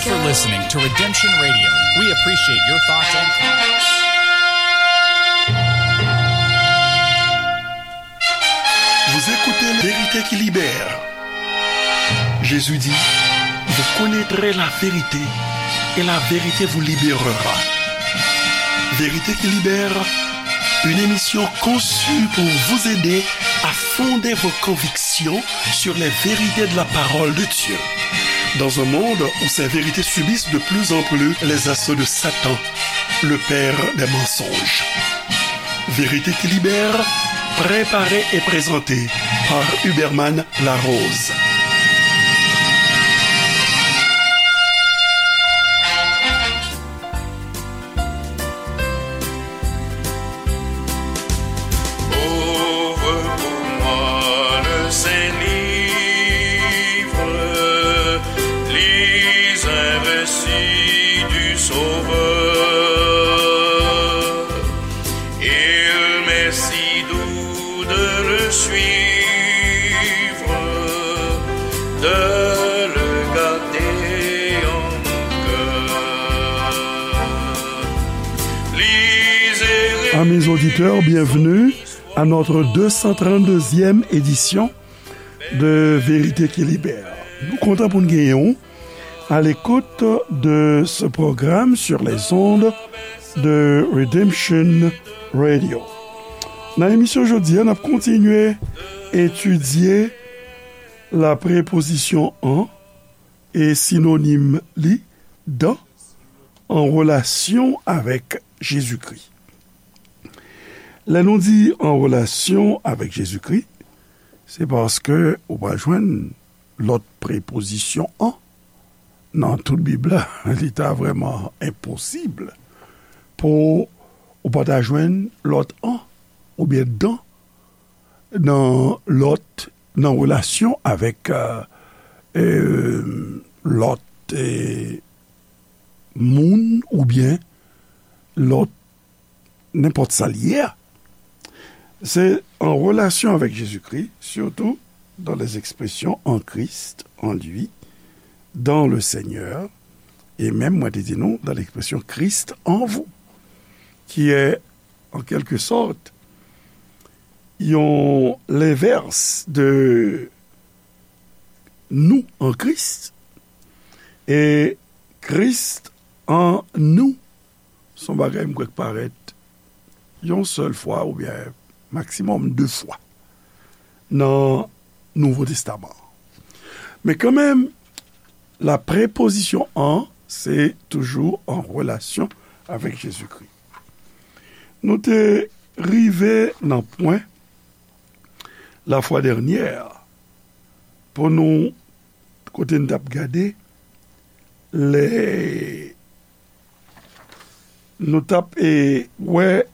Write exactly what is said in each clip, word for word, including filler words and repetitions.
for listening to Redemption Radio. We appreciate your thoughts and comments. Vous écoutez La Vérité qui libère. Jésus dit, vous connaîtrez la vérité et la vérité vous libérera. Vérité qui libère, une émission conçue pour vous aider à fonder vos convictions sur les vérités de la parole de Dieu. Dans un monde où ces vérités subissent de plus en plus les assauts de Satan, le père des mensonges. Vérité qui libère, préparée et présentée par Huberman Larose. Ouvre pour moi le Saint-Livre, lis un récit du Sauveur. Il m'est si doux de le suivre, de le garder en mon cœur. Lisez. Amis auditeurs, bienvenue à notre deux cent trente-deuxième édition de Vérité qui Libère. Nou kontan pou n genyen w à l'écoute de ce programme sur les ondes de Redemption Radio. Nan emisyon jodi a, n ap kontinye etidye la prepozisyon an e sinonim li, dan, an relasyon avèk Jezikri. Lè nou di an relasyon avèk Jezikri, se paske ou pa jwenn lòt prepozisyon an. Nan tout Bib la, li ta vrèman enposib pou ou pa ta jwenn lòt an oubyen dan nan lòt, nan relasyon avèk, euh, euh, lòt, euh, moun oubyen lòt nenpòt sa l ye a. Se an relasyon avèk Jezikri, surtout dans les expressions en Christ, en lui, dans le Seigneur, et même, mwen te di nou, dans l'expression Christ en vous, qui est, en quelque sorte, yon lenvès de nous en Christ, e Christ en nous, se yon bagay m kwè k parèt yon sèl fwa oubyen maksimòm de fwa nan Nouvo Testaman. Men kanmenm, la prepozisyon an, se toujou an relasyon avèk Jezikri. Nou te rive nan pwen la fwa dènyè pou nou, kote n t ap gade lè nou t ap, e, wè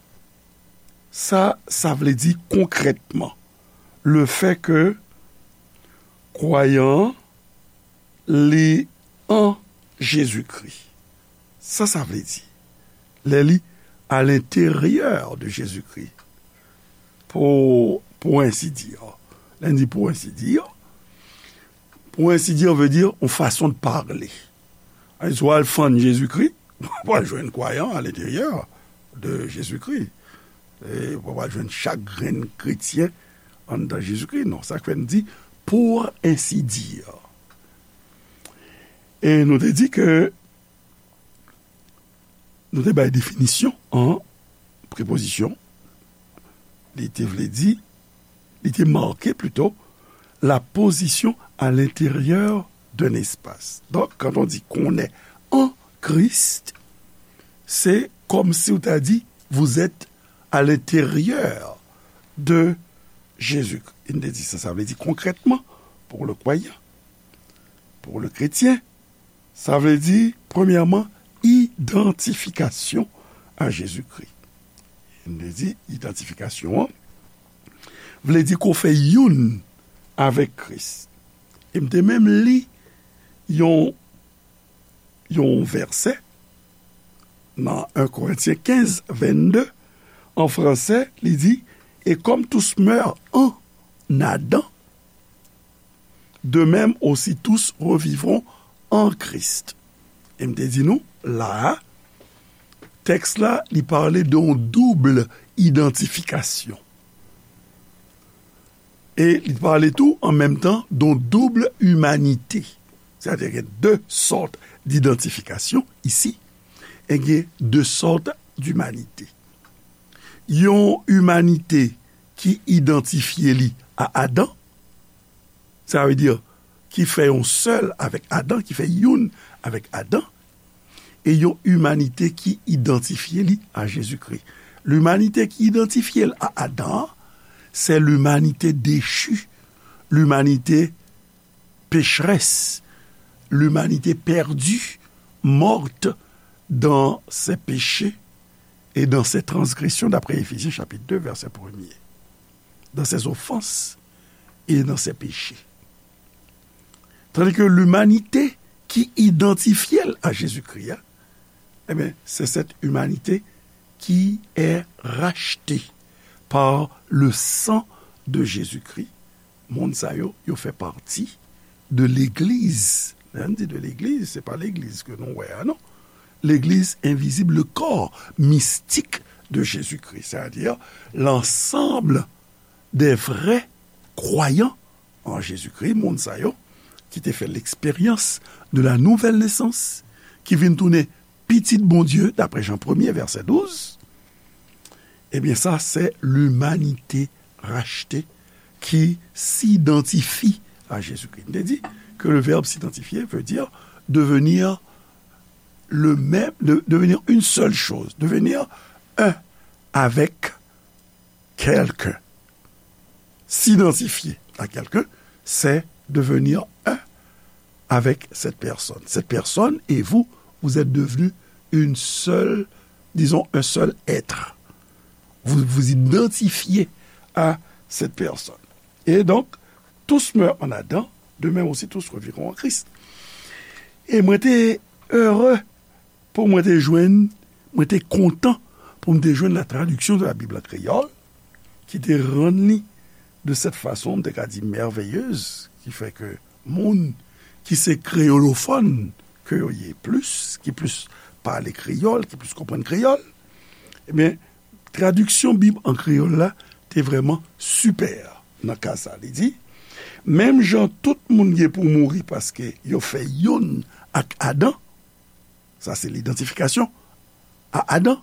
sa sa vle di konkrètman, le fait que kwayan an li an Jezikri. Sa sa vle di? Lè li à l'intérieur de Jésus-Christ, pour, pour ainsi dire. Lè n di pour ainsi dire, pour ainsi dire veut dire une façon de parler. Alò, si w al fann Jezikri, w ap jwenn kwayan à l'intérieur de Jésus-Christ. E w ap jwenn chak grenn kretyen anndan Jezikri. Non, sa k fè n di pour ainsi dire. E nou te di ke nou te bay definisyon an prepozisyon. Li te vle di, li te make plito, la position à l'intérieur d'un espace. Donc, quand on dit qu'on est en Christ, c'est comme si ou ta di, vous êtes à l'intérieur de Jésus. Li te di sa, sa vle di konkrètman, pour le croyant, pour le chrétien, sa vle di, premyèman, idantifikasyon a Jezikri. M te di, idantifikasyon an vle di ke w fè youn avèk Kris. E m te menm li yon, yon vèsè nan un Corinthiens quinze, vingt-deux, an fransè, li di, et comme tous meurent en Adam, de même aussi tous revivront en Christ. E m te di nou, la a, tèks la, li pale de yon doub idantifikasyon. E li pale tou, an menm tan, de yon doub imanite. Sètadi gen de sòt d'idantifikasyon isi, e gen de sòt d'imanite. Yon imanite ki idantifye li a Adan, sa vle di, ki fè yon sèl avèk Adan, ki fè youn avèk Adan, e yon imanite ki idantifye li a Jezikri. Limanite ki idantifye l a Adan an, se limanite dechi, limanite pécheresse, l'humanité perdue, morte dans ses péchés et dans ses transgressions, d'après Éphésiens chapitre deux, verset premier. Dans ses offenses et dans ses péchés. Tandis que l'humanité qui identifie à Jésus-Christ, eh bien, c'est cette humanité qui est rachetée par le sang de Jésus-Christ. Moun sa yo, yo fè pati de legliz. Lè n di de legliz, se pa legliz ke nou wè a, non. Legliz envizib, le corps mystique de Jésus-Christ, c'est-à-dire l'ensemble des vrais croyants en Jésus-Christ, moun sa yo ki te fè l'expérience de la nouvelle naissance, ki vin tounen pitit Bondye, d'après Jean premier, verset douze, eh bien, ça, c'est l'humanité rachetée qui s'identifie à Jésus-Christ. M te di ke le verbe s'identifier veut dire devenir le même, de, devenir une seule chose, devenir un avec quelqu'un. S'identifier à quelqu'un, c'est devenir un avec cette personne. Cette personne et vous, vous êtes devenus une seule, disons, un seul être. Vous vous identifiez à cette personne. Et donc, tous meurent en Adam, de même aussi tous revivront en Christ. E mwen te ere pou mwen te jwenn, mwen te kontan pou m te jwenn la traduction de la Bible en créole, ki te rann li de cette façon, m te ka di merveilleuse, ki fè ke moun ki se kreyolofòn ke yo ye plis, ki plis pale kreyòl, ki plis konprann kreyòl, ebyen, tradiksyon Bib an kreyòl la te vrèman sipè nan ka sa. Li di, menm jan tout moun gen pou mouri paske yo fè youn ak Adan, sa se lidantifikasyon a Adan,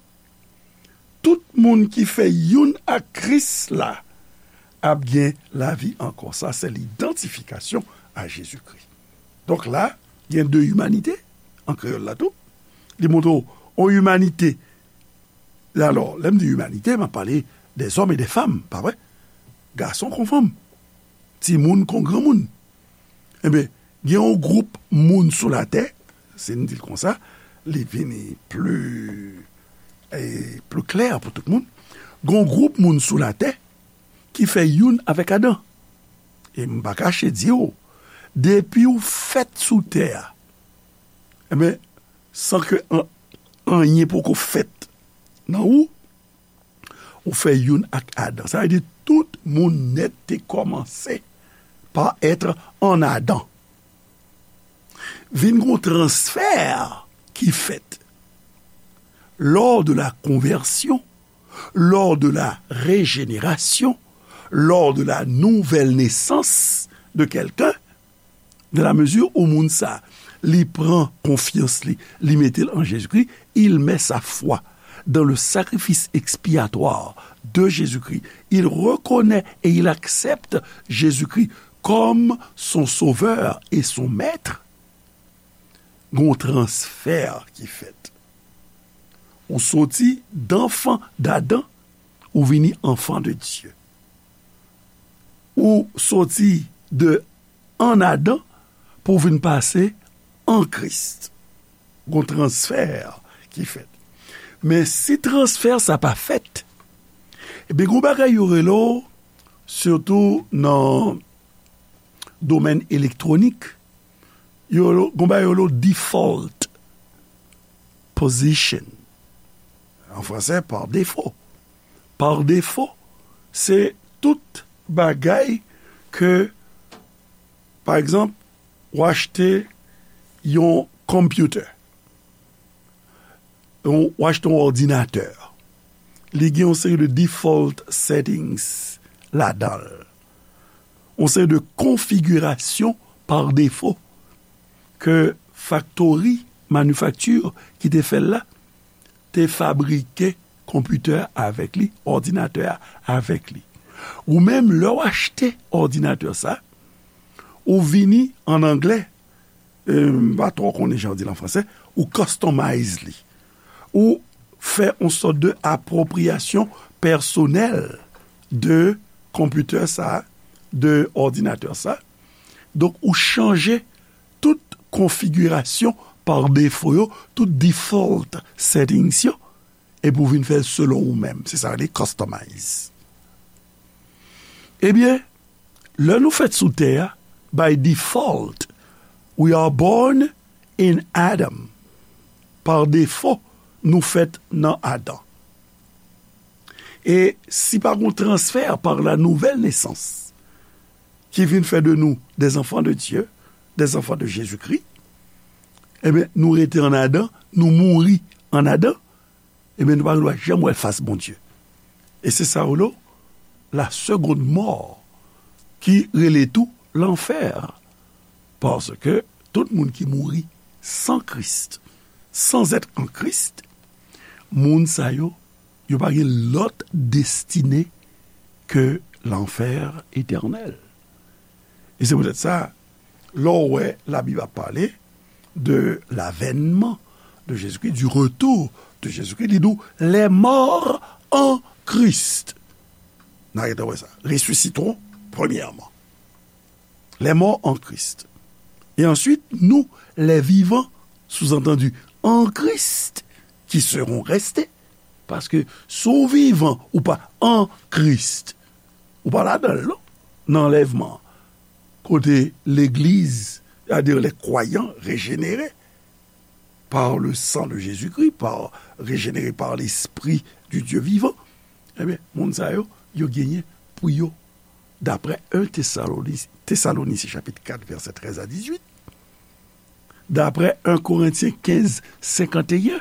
tout moun ki fè youn ak Kris la ap gen lavi ankò. Sa se lidantifikasyon a Jezikri. Donk la, gen de imanite, an kreyòl la tou. Li montre w yon imanite. Alò, lè m di imanite, m ap pale des hommes et des femmes, pa vre? Gason kon fanm, timoun kon granmoun. Ebyen, gen yon gwoup moun sou latè, si n di l konsa, li vini pli, e, pli klè pou tout moun. Gen yon gwoup moun sou latè ki fè youn avèk Adan. E m pa kache di w, depi w fèt sou tè a, ebyen, san ke an-, anyen poko fèt nan ou, ou fè youn ak Adan. Sa vle di tout moun nèt te kòmanse pa être en Adam. Vin gon transfè ki fèt lors de la conversion, lors de la régénération, lors de la nouvelle naissance de quelqu'un, dans la mesure où moun sa, li pran konfyans li, li mete l an Jezikri, il met sa foi dans le sacrifice expiatoire de Jésus-Christ. Il reconnaît et il accepte Jésus-Christ comme son sauveur et son maître. Gon transfè ki fèt. Ou soti d'enfant d'Adam, ou vini enfant de Dieu. Ou soti de an Adan pou w vin pase an Kris. Gon transfè ki fèt. Men si transfè sa pa fèt, ebyen, gon bagay yo rele w, sitou nan domèn elektwonik, yo, gon bagay yo rele w default position. An fransè, par défaut. Par défaut, se tout bagay ke, pa egzanp, w achte yon computer. yon, w achte yon òdinatè. Li gen yon seri de default settings ladan l. Yon seri de konfigirasyon pa defo ke faktori, manifakti ki te fè l la, te fabrike konpitè avèk li, òdinatè a avèk li. Ou menm, lè w achte òdinatè sa, ou vini, an anglè, e, m pa twò konnen jan yo di l an fransè, ou customize li. Ou fè yon sòt de apwopriyasyon pèsonèl de konpitè sa, de òdinatè sa. Donk, ou chanje tout konfigirasyon pa defo yo, tout default settings yo, epi w vin fè l selon ou menm. Se sa yo rele customize. Ebyen, lè nou fèt sou tè a, by default, we are born in Adam. Pa defo, nou fèt nan Adan. E si pa gen yon transfè par la nouvelle naissance, ki vin fè de nou des enfants de Dieu, des enfants de Jésus-Christ, ebyen, nou rete an Adan, nou mouri an Adan, ebyen, nou pa gen dwa janm wè fas Bondye. E se sa yo rele la seconde mort, ki rele tou lanfè. Paske tout moun ki mouri san Kris, sans être en Christ, moun sa yo, yo pa gen lòt destine ke lanfè etènèl. E se poutèt sa, lè w wè Labib ap pale de l'avènement de Jésus-Christ, du retour de Jésus-Christ, li di w, les morts en Christ. N a gentan wè sa. Ressusciteront premièrement. Les morts en Christ. Et ensuite, nous, les vivants, sous-entendu, en Christ, qui serons restés. Paske si w vivan, ou pa an Kris, ou pa ladan l, non, nan anlèvman an. Kote legliz, c'est-à-dire les croyants régénérés par le sang de Jésus-Christ, par, régénérés par l'Esprit du Dieu vivant, ebyen, moun sa yo, yo genyen pou yo, daprè un Tesaloni-, Tesalonisyen chapit kat, vèsè trèz a dizuit, daprè un Korentyen kenz, senkanteyen,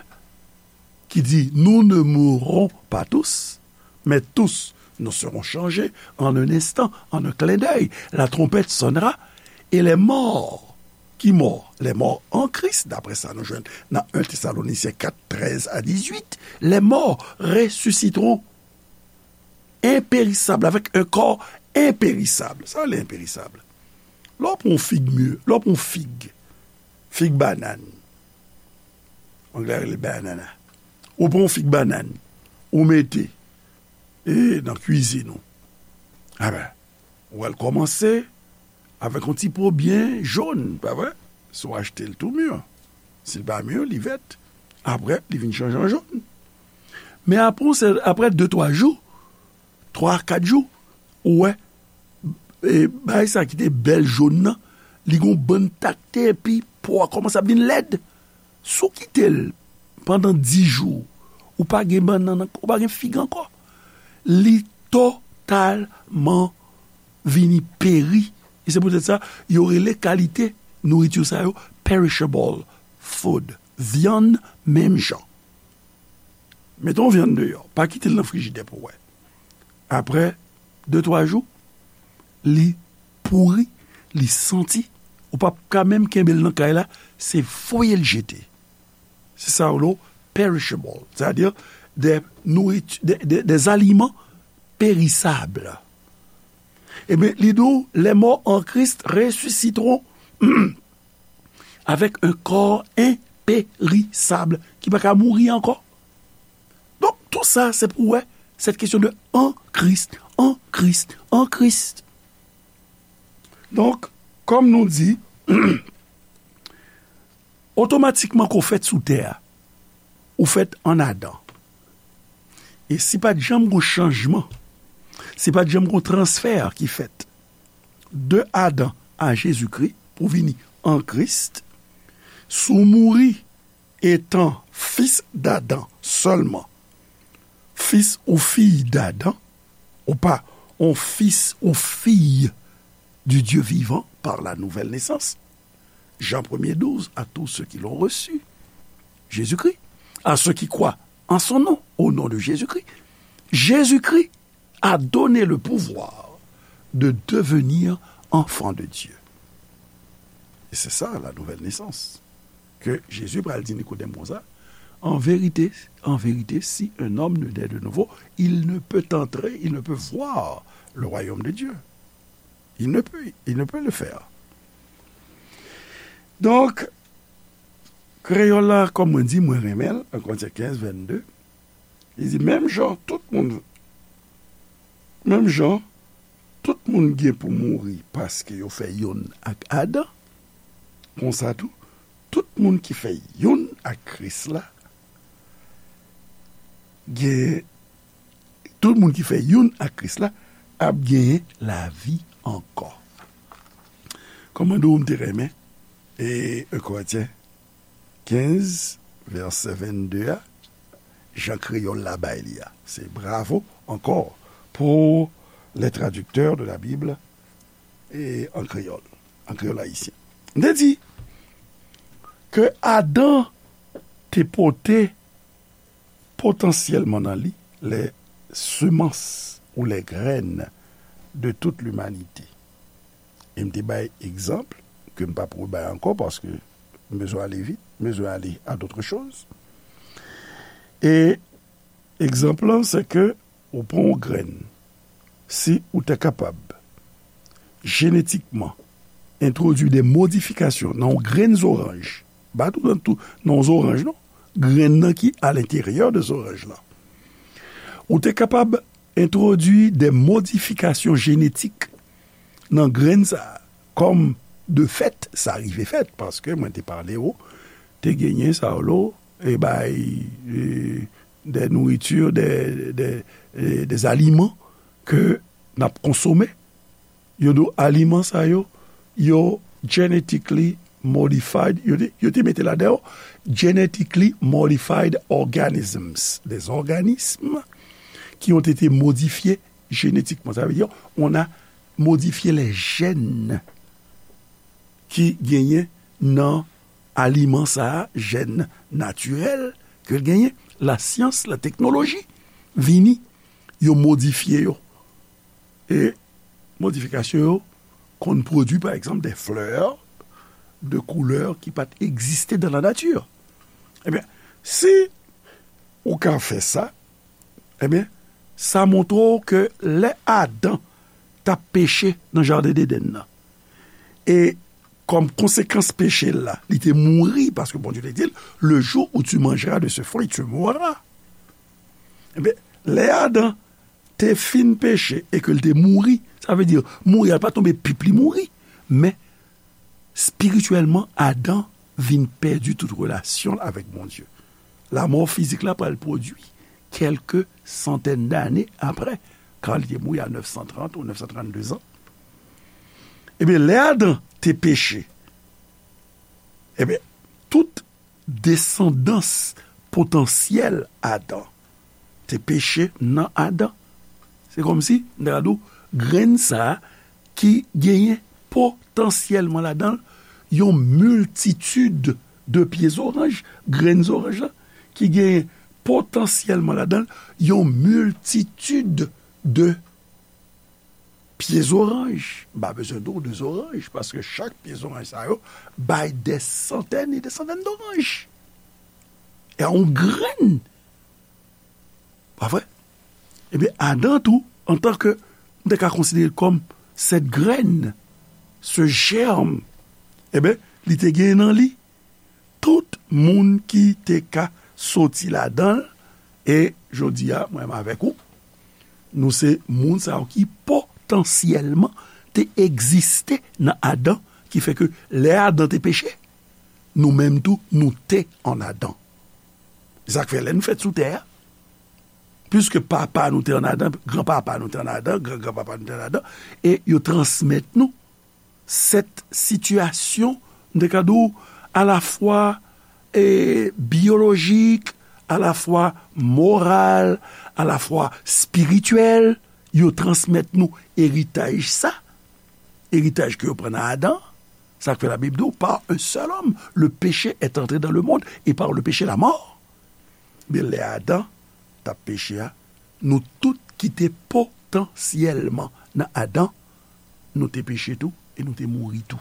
ki di, nous ne mourrons pas tous, mais tous nous serons changés en un instant, en un clin d'œil. La trompette sonnera et les morts, ki mò? Les morts en Christ, daprè sa nou jwenn nan un Tesalonisyen kat, trèz a dizuit, les morts ressusciteront inpérissable, avec un corps impérissable. Sa le inpérissable. Lè w pran yon fig mi, lè w pran yon fig, fig banann, anglè rele banana. Ou pran yon fig banann, ou mete, e, nan kwizin ou. Aben, ou wè l kòmanse avèk yon ti po byen jòn, pa vre? Si w achte l tou mi, si l pa mi, li vèt. Apre, li vin chanje an jòn. Men apre, se, apre de, twa jou, twa, kat jou, ou wè, e, bagay sa ki te bèl jòn nan, li gon bann takte, epi po a kòmanse ap vin lèd. Si w kite l pandan dis jou, ou pa gen bannann ankò, ou pa gen fig ankò. Li totalman vini peri. E se poutèt sa, yo rele kalite nouriti sa yo perishable food. Vyann menm jan. Mete yon vyann deyò, pa kite l nan frijidè pou w wè. Apre de, twa jou, li pouri, li santi, ou p ap ka menm kenbe l nan kay la, se voye l jete. Se sa yo rele perishable, c'est-à-dire des nourritures, des, des, des aliments périssables. Ebyen, li di w, les morts en Christ ressusciteront avec un corps impérissable, ki pa ka mouri ankò. Donk, tou sa, se pou w wè, cette question de en Christ, en Christ, en Christ. Donk, kòm nou di, otomatikman ke w fèt sou tè a, ou fèt an Adan. E si pa t janm gon chanjman, si pa t janm gon transfè ki fèt de Adan a Jezikri pou vini an Kris, si w mouri etan fis d'Adam sèlman, fis ou fiy d'Adam, ou pa on fis ou fiy du Dieu vivant par la nouvelle naissance. Jean premier douze, à tous ceux qui l'ont reçu, Jésus-Christ, à ceux qui croient en son nom, au nom de Jésus-Christ. Jésus-Christ a donné le pouvoir de devenir enfant de Dieu. Et c'est ça la nouvelle naissance. Que Jésus pral di Nikodèm konsa, en vérité, en vérité, si un homme ne naît de nouveau, il ne peut entrer, il ne peut voir le royaume de Dieu. Il ne peut, il ne peut le faire. Donk, kreyòl la, kòm mwen di, mwen renmen l, an Korentyen kenz, vennde, li di, menm jan tout moun, menm jan tout moun gen pou mouri paske yo fè youn ak Adan, konsa tou, tout moun ki fè youn ak Kris la, gen, tout moun ki fè youn ak Kris la ap genyen lavi ankò. Kòmande w m te renmen, e, en Korentyen kenz, vèsè vennde a, jan kreyòl la bay li a. Se bravo ankò pour les traducteurs de la Bible e an kreyòl, an kreyòl ayisyen. M te di ke Adan te pote potansyèlman nan li les semences ou les graines de toute l'humanité. E m te bay egzanp ke m p ap rebay ankò paske m bezwen ale vit, m bezwen ale à d'autres choses. E egzanp lan, se ke ou pran yon grenn, si ou te kapab jenetikman entwodui de modifikasyon nan yon grenn zoranj, pa tou nan tou, nan yon zoranj non, grenn nan ki alenteryè de zoranj lan. Ou te kapab entwodui de modifikasyon jenetik nan grenn sa a, kòm de fèt, sa rive fèt, paske mwen te pale w, te genyen sa yo, e bay, e, de nouriti, de, de, e, de aliman ke n ap konsome. Yo di w aliman sa yo, yo genetically modified, yo te, yo te mete ladan yo genetically modified organisms, des organismes qui ont été modifiés génétiquement. Sa vle di, on a modifié les gènes ki genyen nan aliman sa a, jèn natirèl ke l genyen, lasyans, lateknoloji vini, yo modifye yo. E modifikasyon yo konn pwodui, pa egzanp, de flè, de koulè ki pa t egziste dans la nature. Ebyen, si ou ka fè sa, ebyen, sa montre w ke lè Adan t ap peche nan jaden Edenn nan, e kòm konsekans peche l la, li te mouri, paske Bondye te di l, le jour où tu mangeras de ce fruit, tu mourras. Ebyen, lè Adan te fin peche e ke l te mouri, sa vle di, mouri a pa tonbe pip li mouri, men espirityèlman, Adan vin pèdi tout relasyon l avèk Bondye. Lanmò fizik la pral pwodui kèlke santèn dane apre, kan li te mouri a nèf san trant ou nèf san trannde zan. Ebyen, lè Adan te peche, ebyen, tout desandans potansyèl Adan te peche nan Adan. Se kòmsi, m ta ka di w, grenn sa a ki genyen potansyèlman ladan l yon miltitid de pye zoranj, grenn zoranj la, ki genyen potansyèlman ladan l yon miltitid de pye zoranj. M pa bezwen di w de zoranj, paske chak pye zoranj sa yo bay dè santèn e dè santèn doranj. E yon grenn. Pa vre? Ebyen, Adan tou, antanke, m te ka konsidere l kòm cette graine, ce germe, ebyen, li te gen nan li tout moun ki te ka soti ladan l. E jodi a, mwen menm avèk ou, nou se moun sa yo ki potansyèlman te egziste nan Adan, ki fè ke lè Adan te peche, nou menm tou, nou te an Adan. Se sa k fè lè nou fèt sou tè a, piske papa nou te an Adan, granpapa nou te an Adan, gran granpapa nou te an Adan, e yo transmèt nou sèt sitiyasyon, m te ka di w, alafwa, e, byolojik, alafwa moral, alafwa espirityèl, yo transmèt nou eritaj sa, eritaj ke yo pran nan Adan, sa k fè Labib di w, par un seul homme, le péché est entré dans le monde, et par le péché, la mort. Men lè Adan t ap peche a, nou tout ki te potansyèlman nan Adan, nou te peche tou e nou te mouri tou.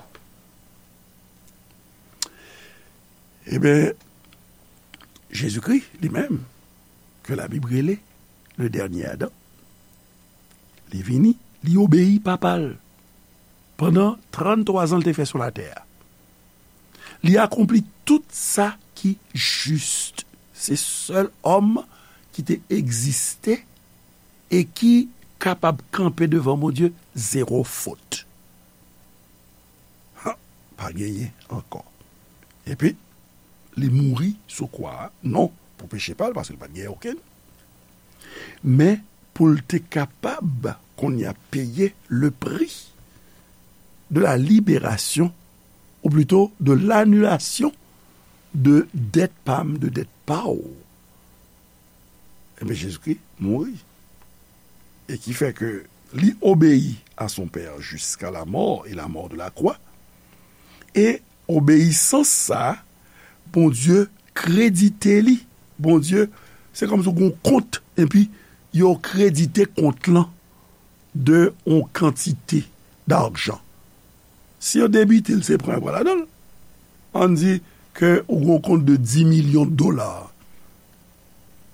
Ebyen, Jezikri, li menm, ke Labib rele le dènye Adan, li vini, li obeyi Papa l pandan tranntwa zan l te fè sou latè a. Li akonpli tout sa ki jis. Se sèl òm ki te egziste e ki kapab kanpe devan Bondye zewo fot. Ha, pa genyen ankò. Epi, li mouri sou kwa a, non pou peche pa l, paske l pa t genyen okenn, men pou l te kapab, kounye a, peye le prix de la libération, ou plito de l'annulation de dèt pa m, de dèt pa w. Ebyen, Jezikri mouri. E ki fè ke li obeyi à son Père jusqu'à la mort et la mort de la croix. E obeyisans sa a, Bondye kredite li. Bondye, se kòmsi w gen yon kont, epi yo kredite kont lan de yon kantite dajan. Si yo debite l, se pran yo pran ladan l. Ann di ke ou gen yon kont de dis milyon dola.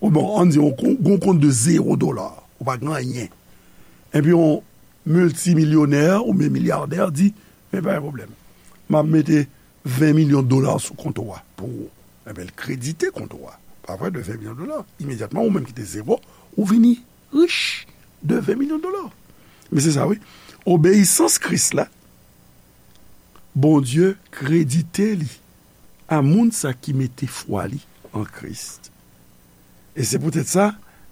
Ou bon, ann di yon kon-, gen yon kont de zewo dola. Ou pa gen anyen. Epi yon miltimilyonè oubyen milyadè di, men pa gen pwoblèm. M ap mete ven milyon dola sou kont ou a pou ou. Ebyen, l kredite kont ou a. Pa vre, de ven milyon dola. Imedyatman, ou menm ki te zewo, ou vini rich de ven milyon dola. Men se sa, wi. Obeyisans Kris la, Bondye kredite li a moun sa ki mete fwa li an Kris. E se poutèt sa,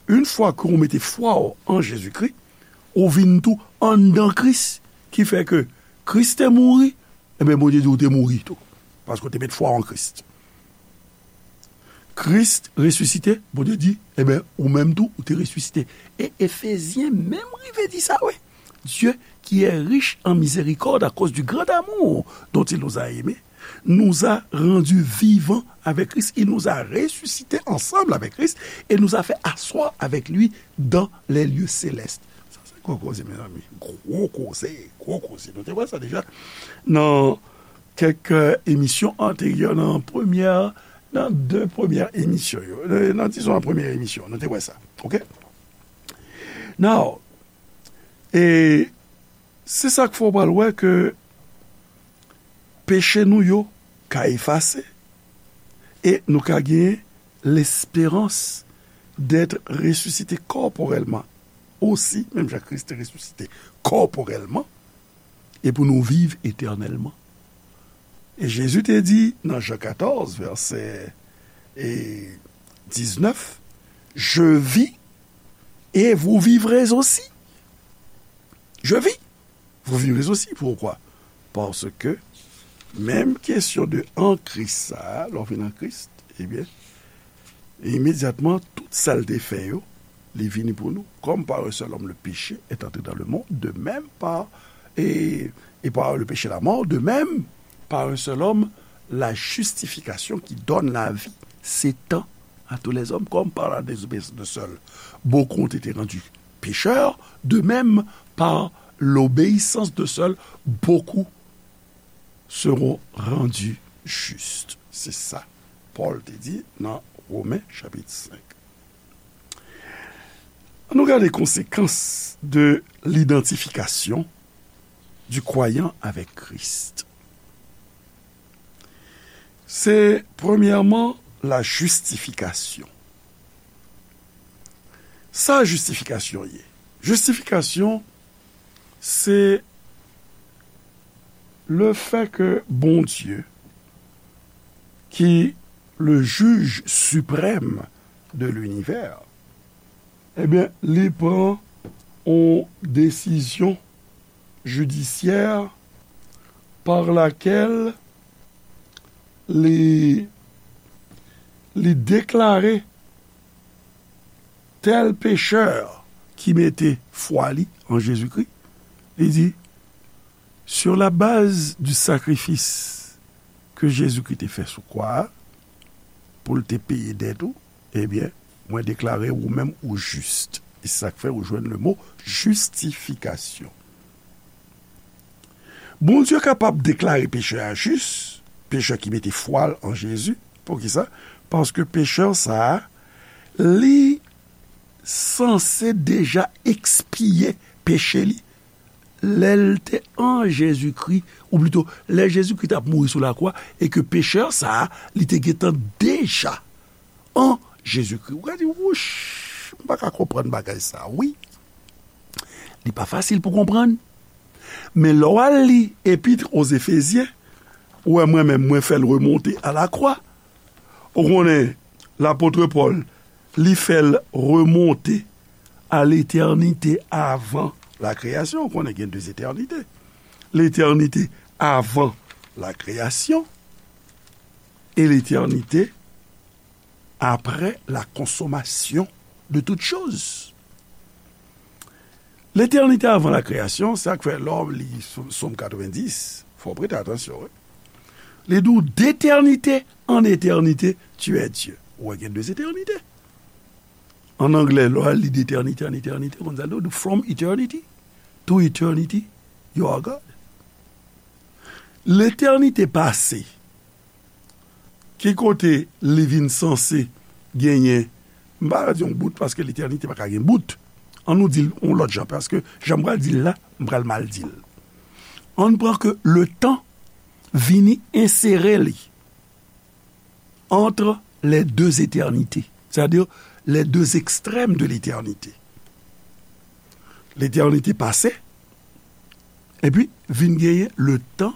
yon fwa ke ou mete fwa w an Jezikri, ou vin tou anndan Kris, ki fè ke Kris te mouri, ebyen, Bondye di ou te mouri tou, paske ou te met fwa w an Kris. Kris resisite, Bondye di, ebyen, ou menm tou, ou te resisite. E Efezyen menm rive di sa, wi. Dieu, qui est riche en miséricorde à cause du grand amour dont il nous a aimés, nous a rendus vivants avec Christ, il nous a ressuscités ensemble avec Christ et nous a fait asseoir avec lui dans les lieux célestes. Sa se gwo koze, mezanmi. Gwo koze, gwo koze. Nou te wè sa deja nan kèk, euh, emisyon anteryè, nan premyè, nan de premyè emisyon yo. Euh, nan, dizon, an premyè emisyon, nou te wè sa. Oke? Now, e se sa k fè w pral wè ke peche nou yo ka efase e nou ka gen lesperans d'être ressuscité corporellement aussi, menm jan Kris te resisite kòporèlman, e pou nou viv etènèlman. E Jezi te di nan Jan katòz, vèsè, e, diznèf, Je vis et vous vivrez aussi. Je vis, vous vivrez aussi. Pourquoi? Paske menm kesyon de an Kris sa a, lè w vin an Kris, ebyen, imedyatman, tout sa l te fè yo, li vini pou nou. Comme par un seul homme le péché est entré dans le monde, de même par, et, et par le péché la mort, de même, par un seul homme, la justification qui donne la vie s'étend à tous les hommes, comme par la désobéissance d'un seul, beaucoup ont été rendus pécheurs, de même, par l'obéissance d'un seul, beaucoup seront rendus justes. Se sa Pòl te di nan Women chapit senk. Ann nou gade konsekans de l'identification du croyant avec Christ. Se, premyèman, la justification. Sa jistifikasyon ye? Jistifikasyon, se le fait que Bondye, ki le juge suprême de l'univers, ebyen, li pran yon desizyon jidisyè par laquelle li, li deklare tèl pechè ki mete fwa li an Jezikri, li di, sur la base du sacrifice que Jésus-Christ te fè sou kwa a, pou l te peye dèt ou, Ebyen, mwen deklare ou menm ou jis. E se sa k fè ou jwenn le mo jistifikasyon. Bondye kapab deklare pechè a jis, pechè ki mete fwa l an Jezi. Poukisa? Paske pechè sa a, li sanse deja ekspiye peche li lè l te an Jezikri, ou plito, lè Jezikri t ap mouri sou lakwa, e ke pechè sa a, li te gentan deja an Jezikri. Ou ka di, wouch, m pa ka konprann bagay sa a, wi. Li pa fasil pou konprann. Men lè w al li Epître aux Éphésiens, ou wè mwen menm, mwen fè l remonte a la croix. Ou konnen, lapot Pòl, li fè l remonte a letènite avan la kreyasyon. Ou konnen gen de etènite. Letènite avan la kreyasyon e letènite après la consommation de toutes choses. Letènite avan la kreyasyon, sa k fè lè w li Sòm katrevenndis, fò w prete atansyon, wi. Li di w, d'éternité en éternité, tu es Dieu. Ou wè gen de etènite. An anglè, lè w al li d'éternité en éternité, konn sa l di w, from eternity to eternity, you are God. Letènite pase, ki kote li vin sanse genyen, m pa di yon bout, paske letènite pa ka gen bout. An nou di l yon lòt jan, paske jan m pral di l la, m pral mal di l. An pran ke le tan vini ensere li entre les deux éternités, c'est-à-dire les deux extrêmes de l'éternité. Letènite pase, epi vin genyen le tan,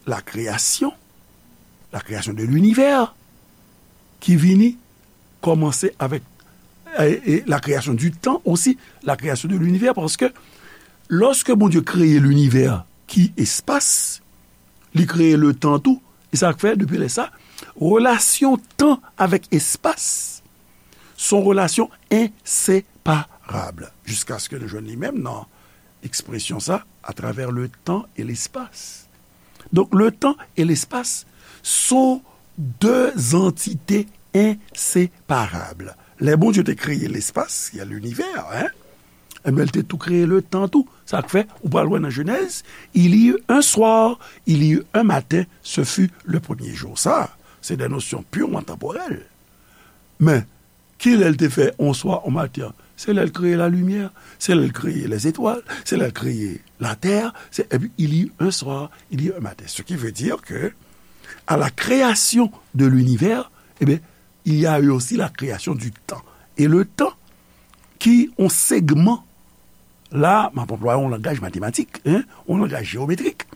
la kreyasyon, la kreyasyon de linivè, ki vini kòmanse avèk, e, e, la kreyasyon di tan osi, la kreyasyon de linivè, paske lòske Bondye kreye linivè ki espas, li kreye le tan tou, e sa k fè, depi lè sa, relasyon tan avèk espas, se yon relasyon enseparab, jiskaske nou jwenn li menm nan ekspresyon sa, à travers le temps et l'espace. Donk, le tan e lespas se de antite enseparab. Lè Bondye te kreye lespas, ki a linivè, en, enben, li te tou kreye le tan tou. Sa k fè, ou pral wè nan Jenèz, il y eut un soir, il y eut un matin, ce fut le premier jour. Sa, se de nosyon pirman tanporèl. Men, kilè l te fè on swa, on maten an? Se lè l kreye lalimyè, se lè l kreye lèzetwal, se lè l kreye latè, se, epi il y eut un soir, il y eut un matin. Ce qui veut dire que, à la création de l'univers, eh bien, il y a eu aussi la création du temps. E le tan, ki on segman, la, m ap anplwaye yon langaj matematik, en, yon langaj jewometrik.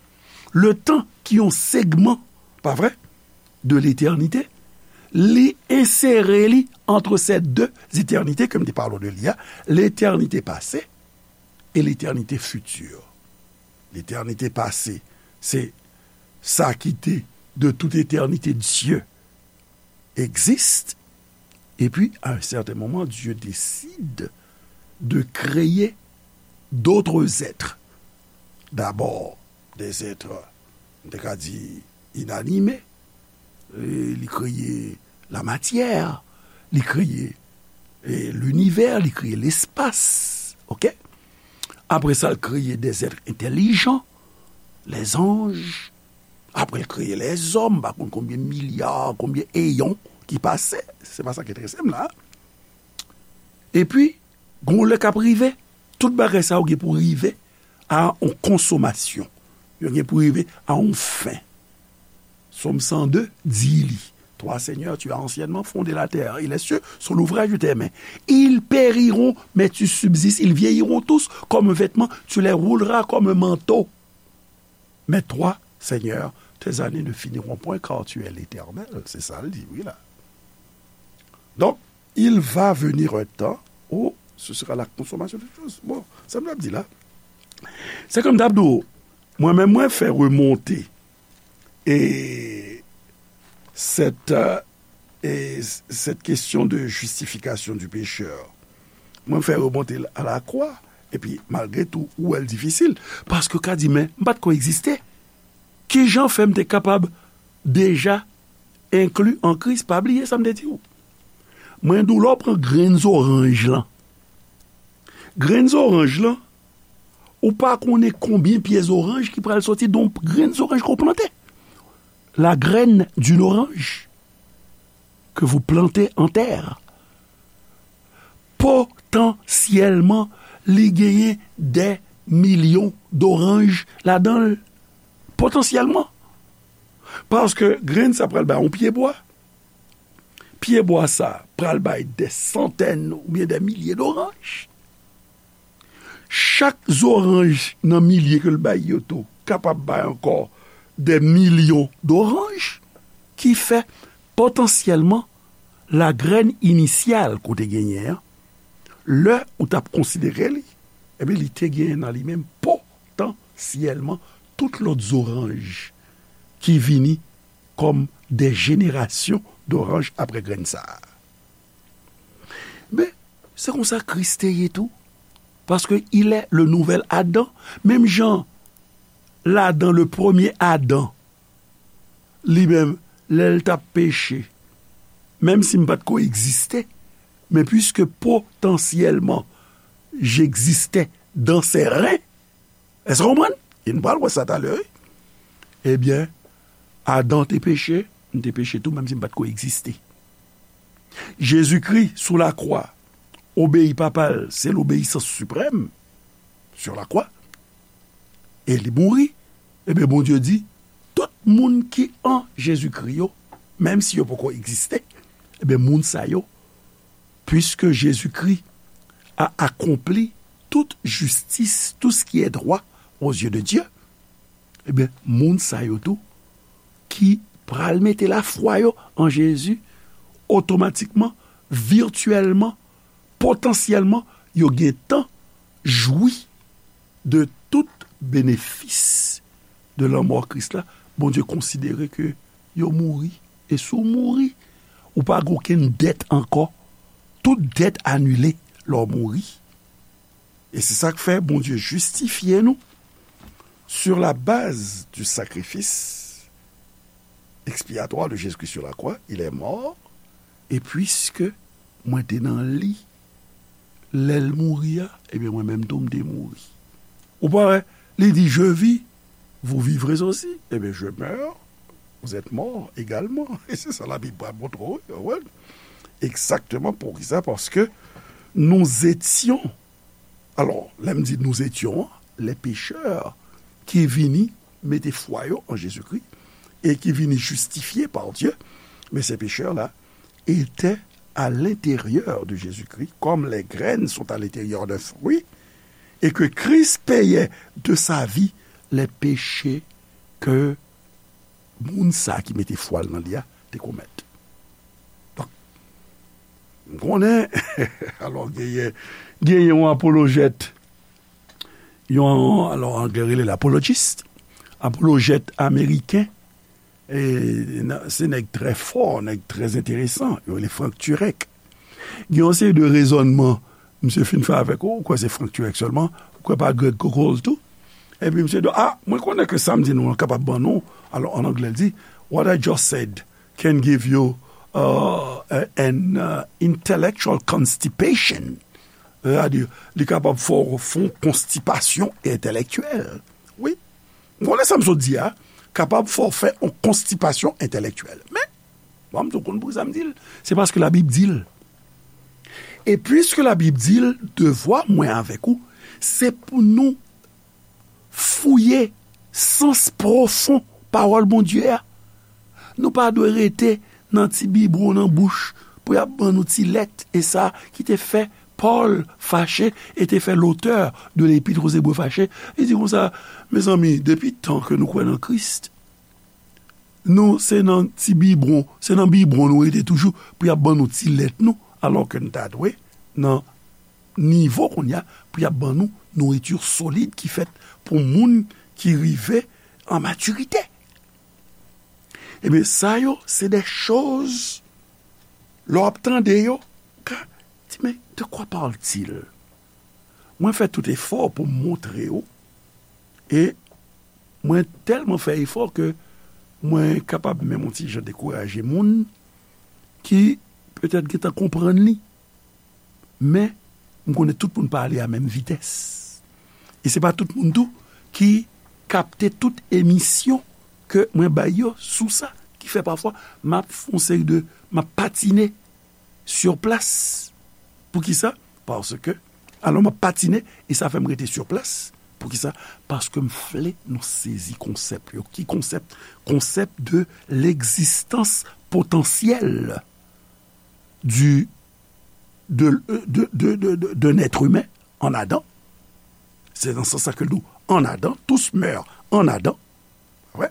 Le tan ki yon segman, pa vre, de letènite, li ensere li entre ces deux éternités ke m te pale w de li a, letènite pase e letènite fiti. Letènite pase, se sa ki te de tout eternite, Dieu existe, et puis à un certain moment, Dieu décide de créer d'autres êtres. D'abord, des êtres, m te ka di, inanimés. E li kreye la matière, li kreye, e, linivè, li kreye lespas. Oke? Apre sa, l kreye des êtres intelligents, les anges. Apre, l kreye lèzòm, m pa konn konbyen milya, konbyen eyon ki pase. Se pa sa k enterese m la. Epi, gon lè k ap rive, tout bagay sa yo gen pou rive a yon konsomasyon. Yo gen pou rive a yon fen. Sòm san de di li, Toi, Seigneur, tu as anciennement fondé la terre, et les cieux sont l'ouvrage de tes mains. Ils périront, mais tu subsistes. Ils vieilliront tous comme un vêtement. Tu les rouleras comme un manteau. Mais toi, Seigneur, tes années ne finiront point, car tu es l'Éternel. Se sa l di, wi, la. Donk, il va venir un temps où ce sera la consommation de toutes choses. Bon, sa m t ap di la, se kòm m t ap di w, mwen menm, mwen fè remonte, e, cette, euh, e, cette question de justification du pécheur. Mwen fè remonte l a la croix, epi malgre tou, ou wè l difisil, paske w ka di, men, m pa t ko egziste. Kijan fè m te kapab deja enkli an Kris? Pa bliye sa m te di w. Mwen di w, lè w pran grenn zoranj lan, grenn zoranj lan, ou pa konnen konbyen pye zoranj ki pral soti de yon grenn zoranj ke w plante. La graine d'une orange que vous plantez en terre, potansyèlman, li genyen dè milyon doranj ladan l. Potansyèlman. Paske grenn sa pral bay yon pyebwa. Pyebwa sa pral bay dè santèn oubyen dè milye doranj. Chak zoranj nan milye ke l bay yo tou kapab bay ankò dè milyon doranj, ki fè potansyèlman la graine initiale ke w te genyen an, lè ou t ap konsidere li, ebyen, li te genyen nan li menm potansyèlman tout lòt zoranj ki vini kòm dè jenerasyon doranj apre grenn sa a. Men, se konsa Kris te ye tou. Paske il est le nouvel Adam. Menm jan ladan le premye Adan, li menm, lè l t ap peche, menm si m pa t ko egziste, men puiske potansyèlman j'existais dans ses reins, èske w konprann? E nou pral wè sa talè, wi. Ebyen, Adan te peche, m te peche tou, menm si m pa t ko egziste. Jezikri, sou lakwa, obeyi Papa l, se lobeyisans siprèm, sur la croix, e li mouri. Ebyen, Bondye di, tout moun ki an Jezikri yo, menm si yo poko egziste, ebyen, moun sa yo, puiske Jezikri a akonpli tout jistis, tout ce qui est droit aux yeux de Dieu, ebyen, moun sa yo tou ki pral mete lafwa yo an Jezi, otomatikman, vityèlman, potansyèlman, yo gentan jwi de tout benefis de lanmò Kris la. Bondye konsidere ke yo mouri. E si w mouri, ou pa gen okenn dèt ankò. Tout dèt anile lè w mouri. E se sa k fè Bondye jistifye nou sur la base du sacrifice expiatoire de Jésus-Christ sur la croix. Il est mort. E puiske mwen te nan li, lè l mouri a, ebyen, mwen menm tou, m te mouri. Ou pa wè, li di, je vis, vous vivrez aussi. Ebyen, je meurs, vous êtes mort également. E se sa Labib pral montre w, wi, wi. Exactement, poukisa? Paske nous étions, alò, lè m di nous étions, les pécheurs ki vini mete fwa yo an Jezikri e ki vini jistifye par Dieu, men se pechè la, étaient à l'intérieur de Jésus-Christ, comme les graines sont à l'intérieur d'un fruit, et que Christ payait de sa vie les péchés que moun sa ki mete fwa l nan li a te komèt. Donk, m konnen, alò, genyen, genyen yon apolojèt, yon, alò, anglè rele l apologist, apolojèt ameriken, e, nan, se nèg trè fò, nèg trè enteresan, yo rele Frank Turek. Gen yon seri de rezònman misye fin fè avèk ou, ou kwè se Frank Turek sèlman, ou kwè pa Greg Koukl tou? Epi misye di, a, mwen konnen ke sa m di nou an kapab ban nou, alò, an anglè, l di, what I just said can give you uh, a- an uh, intellectual constipation. Sètadi, li kapab fè w fè yon konstipasyon entèlektyèl. Wi. M konnen sa m sot di a, kapab fè w fè yon konstipasyon entèlektyèl. Men, bon, m tou konn poukisa m di l. Se paske Labib di l. E piske Labib di l, devwa mwen avèk ou, se pou nou fouye sans pwofon pawòl Bondye a. Nou pa dwe rete nan ti bibwon nan bouch pou y ap ban nou ti lèt, e sa ki te fè Pòl fache e te fè l'auteur de l'Épître aux Hébreux fache. Li di konsa, mezanmi, depi tan ke nou kwè nan Kris, nou se nan ti bibwon, se nan bibwon nou rete toujou pou y ap ban nou ti lèt nou, alò ke n ta dwe nan nivo kounye a pou y ap ban nou nouriti solid ki fèt pou moun ki rive an matirite. Ebyen, sa yo, se de choz, lè w ap tande yo, ou ka di, men, de quoi parle-t-il? Mwen fè tout efò pou m montre w, e mwen tèlman fè efò ke mwen kapab menm yon ti jan dekouraje moun ki petèt gentan konprann li, men m konnen tout moun pa ale a menm vitès. E se pa tout moun tou ki kapte tout emisyon ke mwen bay yo sou sa, ki fè pafwa m ap fè yon seri de, m ap patine sur place. Poukisa? Paske, alò m ap patine, e sa fè m rete sur place. Poukisa? Paske m vle nou sezi konsèp yo. Ki konsèp? Konsèp de l'existence potentielle du, de, de, de, de, de, d'un être humain en Adam. Se nan sans sa ke l di w en Adam, tous meurent en Adam. Wè.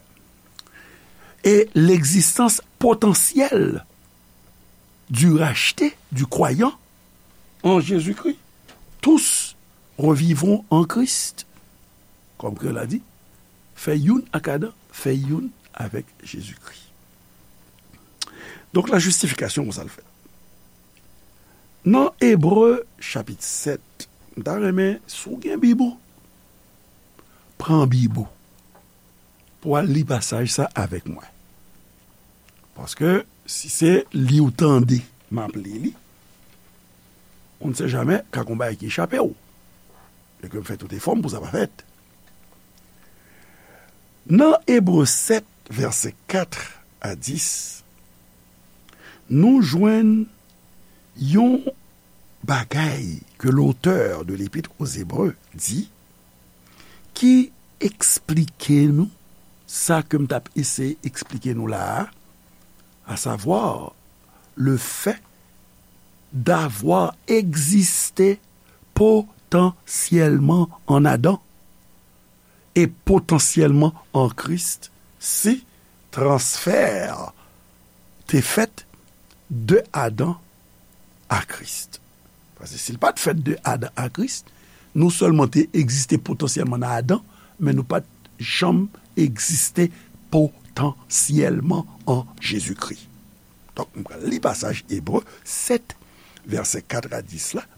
Et l'existence potentielle du racheté, du croyant en Jésus-Christ. Tous revivront en Christ. Kòm Kreyòl la di, fè youn ak Adan, fè youn avèk Jezikri. Donk, la justification, konsa l fèt. Nan Ebre, chapit sèt, m ta renmen, si w gen Bib ou, pran Bib ou pou w al li pasaj sa avèk mwen. Paske, si se li w tande, m ap li li, on ne sait jamais, ka gon bagay ki chape w. E ke m fè tout efò m pou sa pa fèt. Nan Ebre sèt, vèsè kat a dis, nou jwenn yon bagay ke l'auteur de l'Épître aux Hébreux di, ki eksplike nou sa ke m t ap eseye eksplike nou la a, à savoir le fait d'avoir existé potentiellement en Adam et potentiellement en Christ, si transfè te fèt de Adan a Kris. Paske si l pa t fèt de Adan a Kris, nou sèlman te egziste potansyèlman nan Adan, men nou pa t janm egziste potansyèlman an Jezikri. Donk, m pral li pasaj Ebre sèt, vèsè kat a dis la,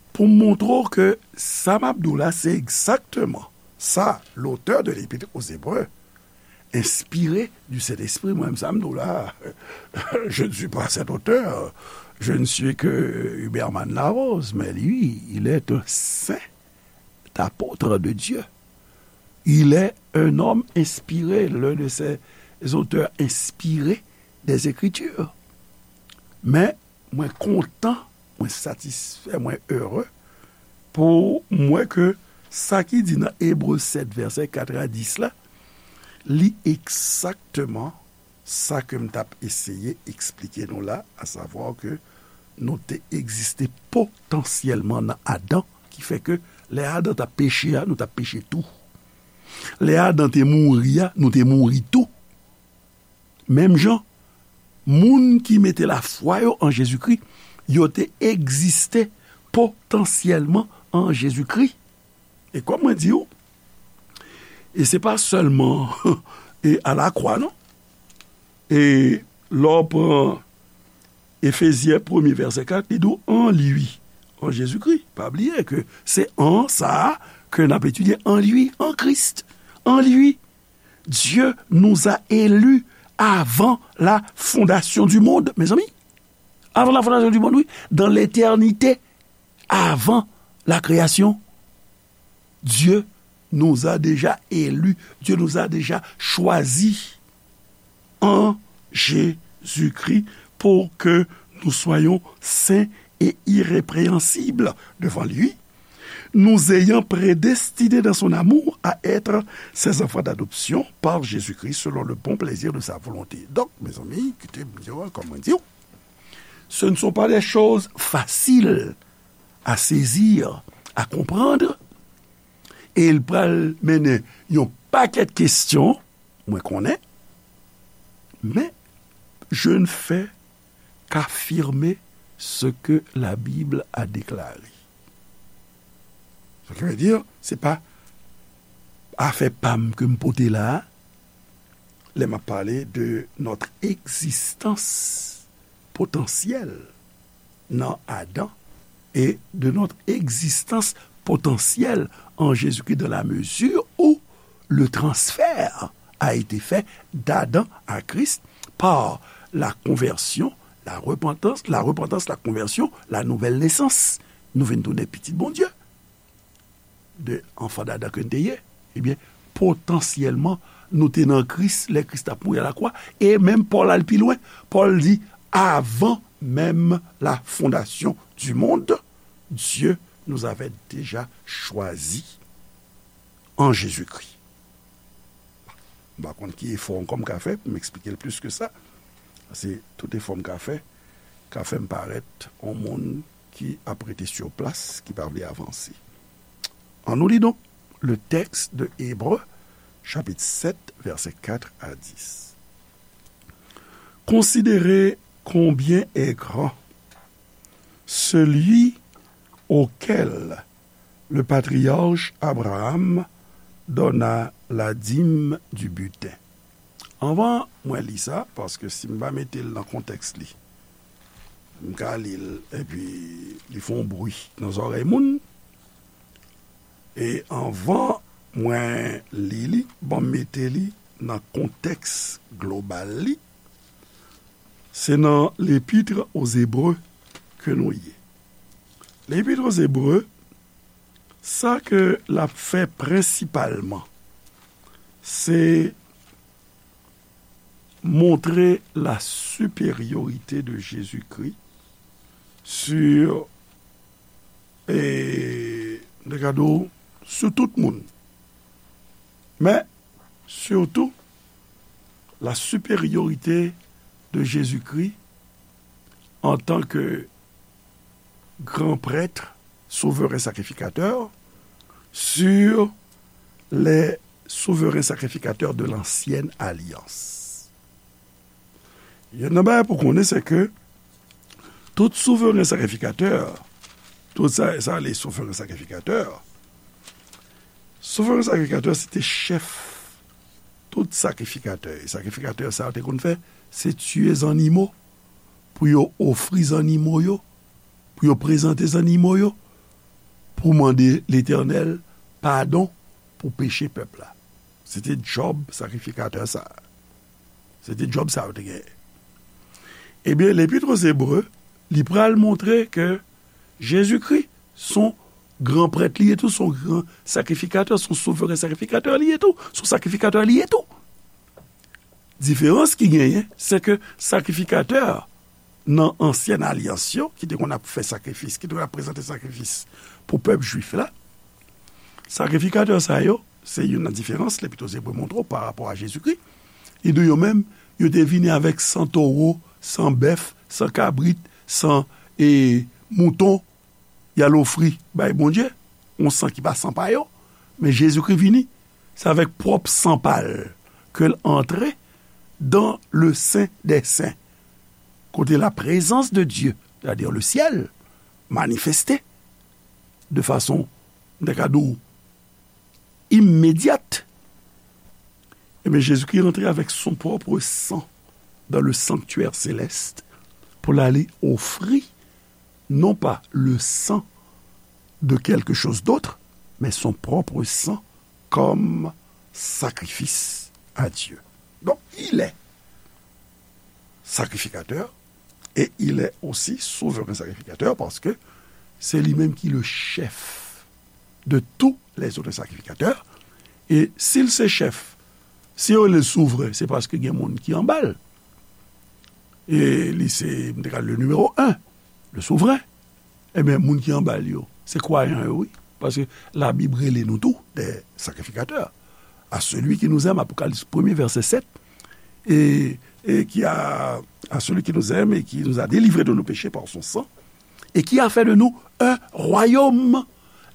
pou m montre w ke sa m ap di w la, se egzakteman sa l'auteur de l'Épître aux Hébreux, inspiré du Saint-Esprit, mwen menm sa m di w la, je ne suis pas cet auteur, je ne suis que Huberman Larose, mais lui, il est un saint apôtre de Dieu. Il est un homme inspiré, l'un de ces auteurs inspirés des Écritures. Men, mwen kontan, mwen satisfè, mwen ere pou m wè ke sa ki di nan Ebre sèt, vèsè kat a dis la, li egzakteman sa ke m t ap eseye eksplike nou la, à savoir ke nou te egziste potansyèlman nan Adan, ki fè ke lè Adan t ap peche a, nou t ap peche tou. Lè Adan te mouri a, nou te mouri tou. Menm jan, moun ki mete lafwa yo an Jezikri, yo te egziste potansyèlman an Jezikri. E kòm mwen di w, e se pa sèlman e alakwa, non. E lè w pran Efezyen premye vèsè kat, li di w en lui, an Jezikri. Pa bliye ke se en sa a ke n ap etidye, en lui, en Christ, en lui. Dieu nous a élus avant la fondation du monde, mezanmi. Avant la fondation du monde, wi. Dans l'éternité, avant la création, Dieu nous a déjà élus. Dieu nous a déjà choisis en Jésus-Christ pour que nous soyons saints et irrépréhensibles devant lui, nous ayant prédestinés dans son amour à être ses enfants d'adoption par Jésus-Christ selon le bon plaisir de sa volonté. Donk, mezanmi, kite m di w, kòm mwen di w, ce ne sont pas des choses faciles à saisir, à comprendre, e l pral mennen yon pakèt kesyon, mwen konnen, men je ne fais qu'affirmer ce que la Bible a déclaré. Sa ki vle di, se pa afè pa m ke m pote la a, lè m ap pale de notre existence potentielle nan Adan et de notre existence potentielle en Jésus-Christ dans la mesure où le transfert a été fait d'Adam à Christ par la conversion la repantans, la repantans, la konvèsyon, la nouvèl nesans. Nou vin tounen pitit Bondye. De anfan d'Adan ke n te ye, ebyen, potansyèlman, nou te nan Kris, lè Kris t ap mouri a lakwa, e menm Pòl al pi lwen. Pòl di, avan menm la fondasyon di mond, Dieu nous avait déjà choisis en Jésus-Christ. M pa konn ki efò ankò m ka fè pou m eksplike l plis ke sa. Paske tout efò m ka fè, ka fè m parèt yon moun ki ap rete sou plas, ki pa vle avanse. Annou li donk le texte de Hébreux, chapitre sept, versets quatre à dix. Considérez combien est grand celui auquel le patriarche Abraham donna la dîme du butin. Anvan mwen li sa, paske si m pa mete l nan kontèks li, m ka li l, epi li fè yon bri nan zòrèy moun. E anvan mwen li li, ban m mete li nan kontèks global li, se nan L'Épître aux Hébreux ke nou ye. L'Épître aux Hébreux, sa ke l ap fè prensipalman, se montre la supériorité de Jésus-Christ sur, e, m te ka di w, sou tout moun. Men, surtout, la supériorité de Jésus-Christ en tant que grand prêtre, souverain sacrificateur, sur les souverains sacrificateurs de l'ancienne alliance. Youn nan bagay pou konnen, se ke tout souverain sacrificateur, tout sa, sa, les souverains sacrificateurs, souverain sacrificateur, se te chèf tout sakrifikatè. E sakrifikatè sa yo te konn fè, se tiye zannimo, pou yo ofri zannimo yo, pou yo prezante zannimo yo, pou mande Letènèl padon pou peche pèp la. Se te djòb sakrifikatè sa a. Se te djòb sa yo te genyen. Ebyen, L'Épître aux Hébreux, li pral montre ke Jezikri, se yon gran prèt li ye tou, se yon gran sakrifikatè, se yon souveren sakrifikatè li ye tou, se yon sakrifikatè li ye tou. Diferans ki genyen, se ke sakrifikatè nan ansyèn alyans yo, ki te konn ap fè sakrifis, ki te konn ap prezante sakrifis pou pèp jwif la, sakrifikatè sa yo, se youn nan diferans Lèpit Ebre montre w pa rapò a Jezikri. Li di w yo menm, yo te vini avèk san towo, san bèf, san kabrit, san, e, mouton, y al ofri bay Bondye, yon san ki pa san pa yo. Men Jezikri vini, se avèk pwòp san pa l ke l antre dans le Saint des Saints, kote la présence de Dieu, c'est-à-dire le ciel, manifeste de façon, m ta ka di w, imedyat. Ebyen, Jezikri rantre avèk son pwòp san dans le sanctuaire céleste pou l ale ofri, non pas le sang de quelque chose d'autre, mais son propre sang comme sacrifice à Dieu. Donc, il est sacrificateur et il est aussi souverain sacrificateur parce que c'est lui-même qui est le chef de tous les autres sacrificateurs. E si l se chèf, si yo rele l souvren, se paske gen moun ki anba l. E li se, m te ka di, le numéro un, le souvren. Ebyen, moun ki anba l yo, se kwayan yo, wi. Paske Labib rele nou tou des sacrificateurs. À celui qui nous aime, Apocalypse premier, verset sept, et, et qui a, à celui qui nous aime et qui nous a délivrés de nos péchés par son sang, et qui a fait de nous un royaume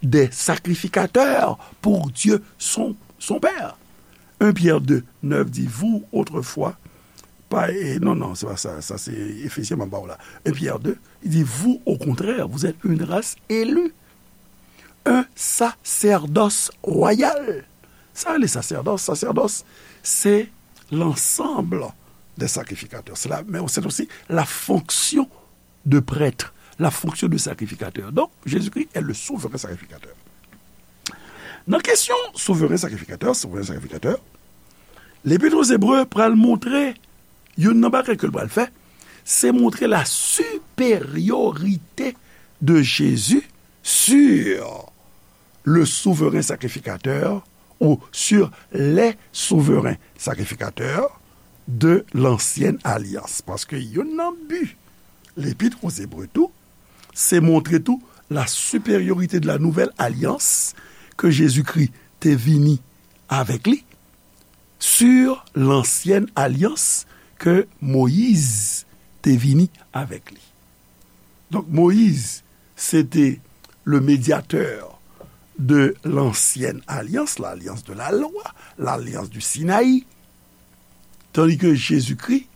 des sacrificateurs pour Dieu son, son Père. Un Pierre deux, neuf dit, vous, autrefois, pa, e, non, non, se pa sa, sa se Efesyen m ap ba w la. Un Pierre deux, il dit, vous, au contraire, vous êtes une race élue, un sacerdoce royal. Sa le sacerdoce, sacerdoce, c'est l'ensemble des sacrificateurs. C'est la, mais c'est aussi la fonction de prêtre, la fonction de sacrificateur. Donc, Jésus-Christ est le souverain sacrificateur. Nan kesyon souveren sakrifikatè, souveren sakrifikatè, Lepit aux Hébreux pral montre youn nan bagay ke l pral fè, c'est montrer la supériorité de Jésus sur le souverain sacrificateur ou sur les souverains sacrificateurs de l'ancienne alliance. Paske youn nan bi Lepit aux Hébreux tou, se montre tou la supériorité de la nouvelle alliance ke Jezikri te vini avèk li sur l'ancienne alliance ke Moyiz te vini avèk li. Donk, Moyiz, se te le médiateur de l'ancienne alliance, l'alliance de la loi, l'alliance du Sinaï, tandis que Jésus-Christ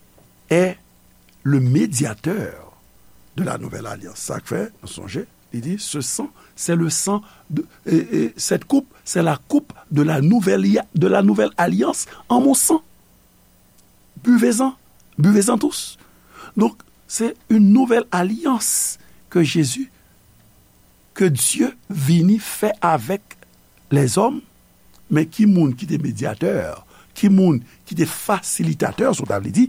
est le médiateur de la nouvelle alliance. Sa k fè, nou sonje, li di, ce sang, c'est le sang de, et, et cette coupe, c'est la coupe de la nouvelle, de la nouvelle alliance en mon sang. Buvez-en, buvez-en tous. Donk, se yon nouvèl alyans ke Jezi, ke Dye vini fè avèk lèzòm. Men ki moun ki te medyatè, ki moun ki te fasilitatè, si w ta vle di,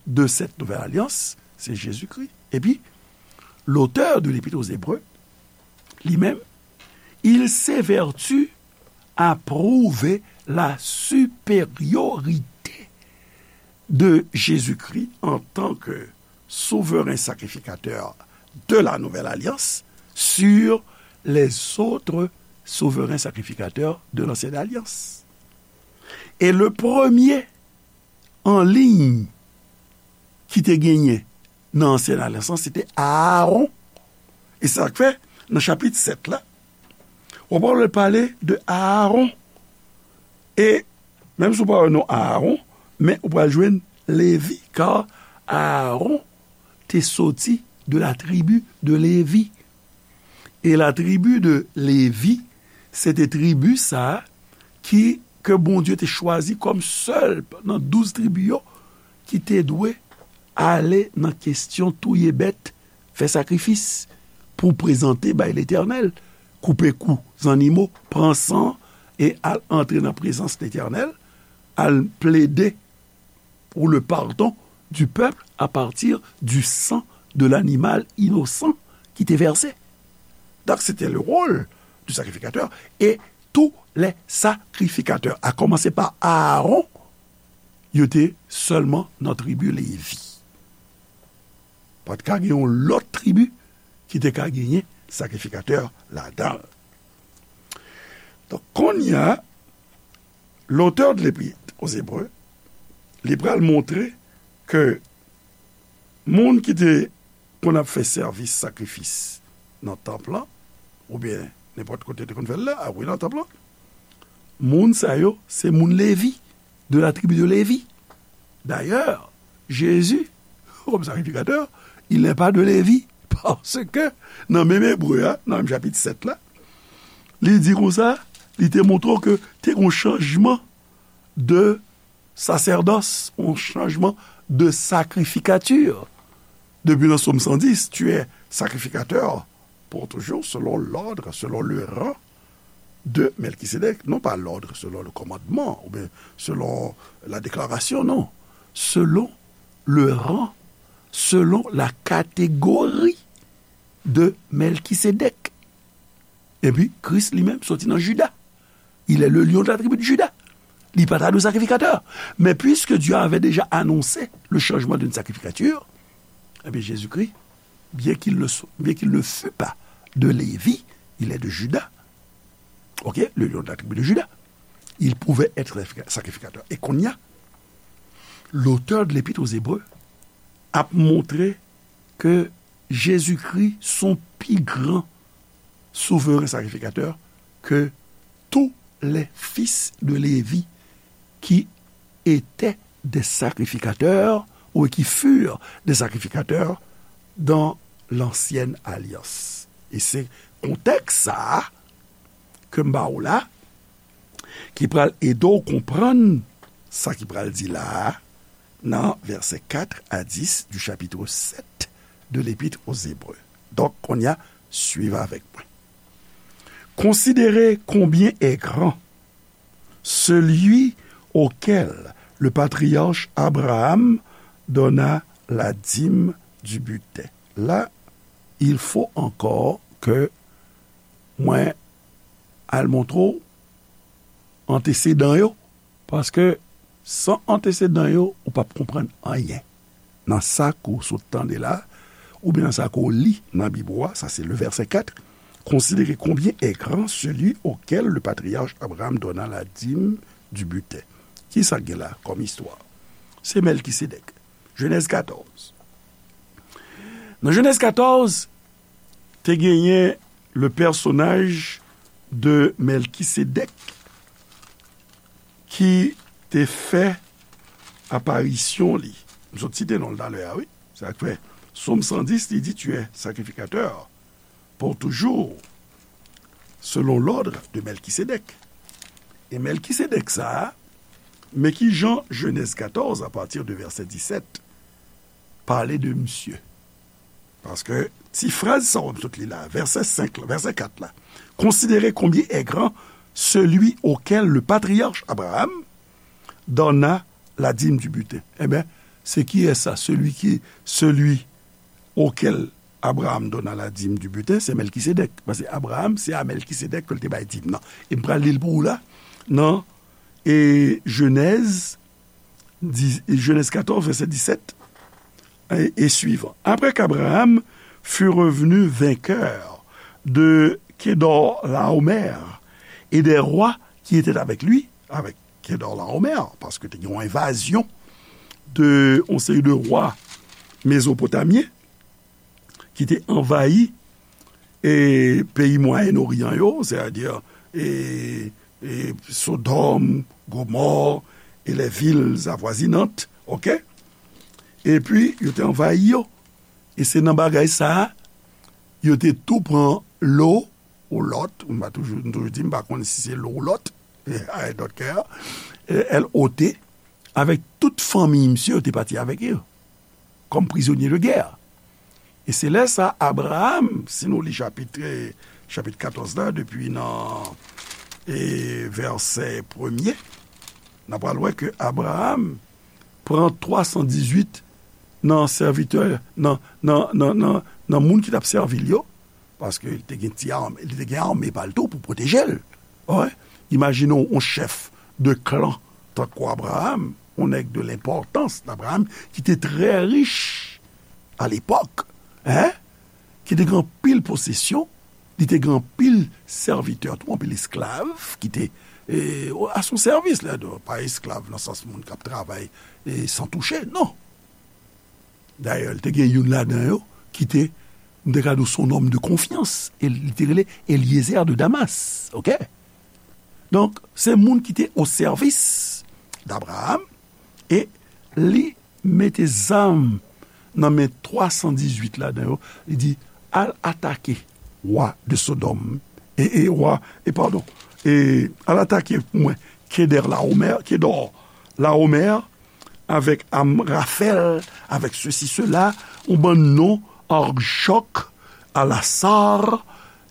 de cette nouvelle alliance, c'est Jésus-Christ. Epi, l'auteur de l'Épître aux Hébreux, li menm, il s'évertue à prouver la supériorité de Jésus-Christ en tant que souverain sacrificateur de la nouvelle alliance sur les autres souverains sacrificateurs de l'ancienne alliance. E le premye an liy ki te genyen nan ansyen alyans lan, se te Aaron. E se sa k fè, nan chapit sèt la, w ap wè l pale de Aaron. E menm si w pa wè non Aaron, men ou pral jwenn Levi, kar Aaron te soti de la tribu de Levi. E la tribu de Levi, se te tribi sa a ki, ke Bondye te chwazi kòm sèl nan douz tribi yo ki te dwe ale nan kesyon touye bèt, fè sakrifis pou prezante bay Letènèl, koupe kou zannimo, pran san e al antre nan prezans Letènèl, al plede pour le pardon du peuple à partir du sang de l'animal innocent ki te vèse. Donk, se te le rôle du sacrificateur. E tous les sacrificateurs, à commencer par Aaron, yo te sèlman nan tribi Levi. Pa t ka gen yon lòt tribi ki te ka genyen sakrifikatè ladan l. Donk, kounye a, l'auteur de l'Épître aux Hébreux, li pral montre ke moun ki te konn ap fè sèvis sakrifis nan tanp lan, oubyen nenpòt kote te konn fè l la, a wi, nan tanp lan, moun sa yo, se moun Levi, de la tribu de Lévi. D'ailleurs, Jésus, comme sacrificateur, il n'est pas de Lévi, parce que nan menm Ebre a, nan menm chapit sèt la, li di konsa, li te montre w ke te gen yon chanjman de sasèdòs, yon chanjman de sacrificature. Depi nan Sòm san dis, tu es sacrificateur pour toujours, selon l'ordre, selon le rang de Melchisédek, non pas l'ordre selon le commandement, ou bien selon la déclaration, non. Selon le rang, selon la catégorie de Melchisédek. Epi, Kris li menm soti nan Jida. Il est le lion de la tribu de Juda. Li pa ta dwe sakrifikatè. Mais puisque Dieu avait déjà annoncé le changement d'une sacrificature, eh bien, Jésus-Christ, bien qu'il ne so-, bien qu'il ne fût pas de Lévi, il est de Juda. Ok, le lion de la tribu de Juda. Il pouvait être sacrificateur. E kounye a, l'auteur de l'Épître aux Hébreux ap montre ke Jezikri se yon pi gran souvren sakrifikatè ke tous les fils de Lévi qui étaient des sacrificateurs ou qui furent des sacrificateurs dans l'ancienne alliance. E se kontèks sa a ke m ba w la, ki pral ede w konprann sa ki pral di la a nan vèsè kat a dis du chapitre sept de l'Épître aux Hébreux. Donk, kounye a, suiv avèk mwen. Considérez combien est grand celui auquel le patriarche Abraham donna la dîme du butin. La, il faut encore que mwen al montre w antesedan yo, paske san antesedan yo, ou p ap konprann anyen nan sa ke w sot tande la, oubyen nan sa ke w li nan Bib ou a, sa se le vèsè kat, considérez combien est grand celui auquel le patriarche Abraham donna la dîme du butin. Kisa k gen la kòm istwa? Se Mèlkisedèk. Jenèz katòz. Nan Jenèz katòz, te genyen le personnage de Mèlkisedèk ki te fè aparisyon li. M sot site non l talè a, wi. Sa k fè Sòm san dis, li di, tu es sacrificateur pour toujours, selon l'ordre de Melchisédek. E Mèlkisedèk sa a, men ki jan Jenèz katòz, a pati de vèsè disèt, pale de misye. Paske ti fraz sa w ap sot li la, vèsè senk la, vèsè kat la. Considérez combien est grand celui auquel le patriarche Abraham donna la dîme du butin. Ebyen, se kiyès sa? Celui qui, celui auquel Abraham donna la dîme du butin, se Mèlkisedèk. Paske Abraham, se a Mèlkisedèk ke l te bay dim nan. E m pral li l pou ou la, nan, e, Jenèz, di, Jenèz katòz, vèsè disèt, e, e suivant. Après qu'Abraham fut revenu vainqueur de Kedorlaomer et des rois qui étaient avec lui, avec Kedorlaomer, paske te gen yon envazyon de yon seri de wa mezopotamyen ki te anvayi e peyi Mwayen Oryan yo, sètadi, e, e Sodòm, Gomò, e les villes avoisinantes, oke? Epi, yo te anvayi yo. E se nan bagay sa a, yo te tou pran Lo ou Lòt, m pa toujou, m toujou di, m pa konn si se Lo ou Lòt, I don't care, L O T, avèk tout fanmi misye, yo te pati avèk yo, kòm prizonye de gè. E se lè sa, Abraham, si nou li chapit, e, chapit katòz la, depi nan, e, vèsè premye, n a pral wè ke Abraham pran twa san dizuit nan sèvitè, nan, nan, nan, nan, nan moun ki t ap sèvi l yo, paske li te gen ti ame, li te gen ame pa l tou pou pwoteje l. Wi. Imajine w, yon chèf de klan tankou Abraham, yon nèg de lenpòtans, Abraham, ki te trè rich a lepòk, en, ki te gen anpil posesyon, li te gen anpil sèvitè tou, anpil esklav ki te, e, a son sèvis, la, pa esklav nan sans moun k ap travay, e, san touche, non. Dayè, li te gen youn ladan yo ki te, m te ka di w, se yon nonm de konfyans, e li te rele Eliezer de Damas, oke? Donk, se moun ki te o sèvis d Abraham, e li mete zam nan men twa san dizuit ladan yo, li di, al atake wa de Sodòm, e, e wa, e padon, e al atake pou mwen Kedorlaomer, Kedorlaomer, avèk Amrafèl, avèk sesi, sela, yon bann non, Arjòk, Alasar,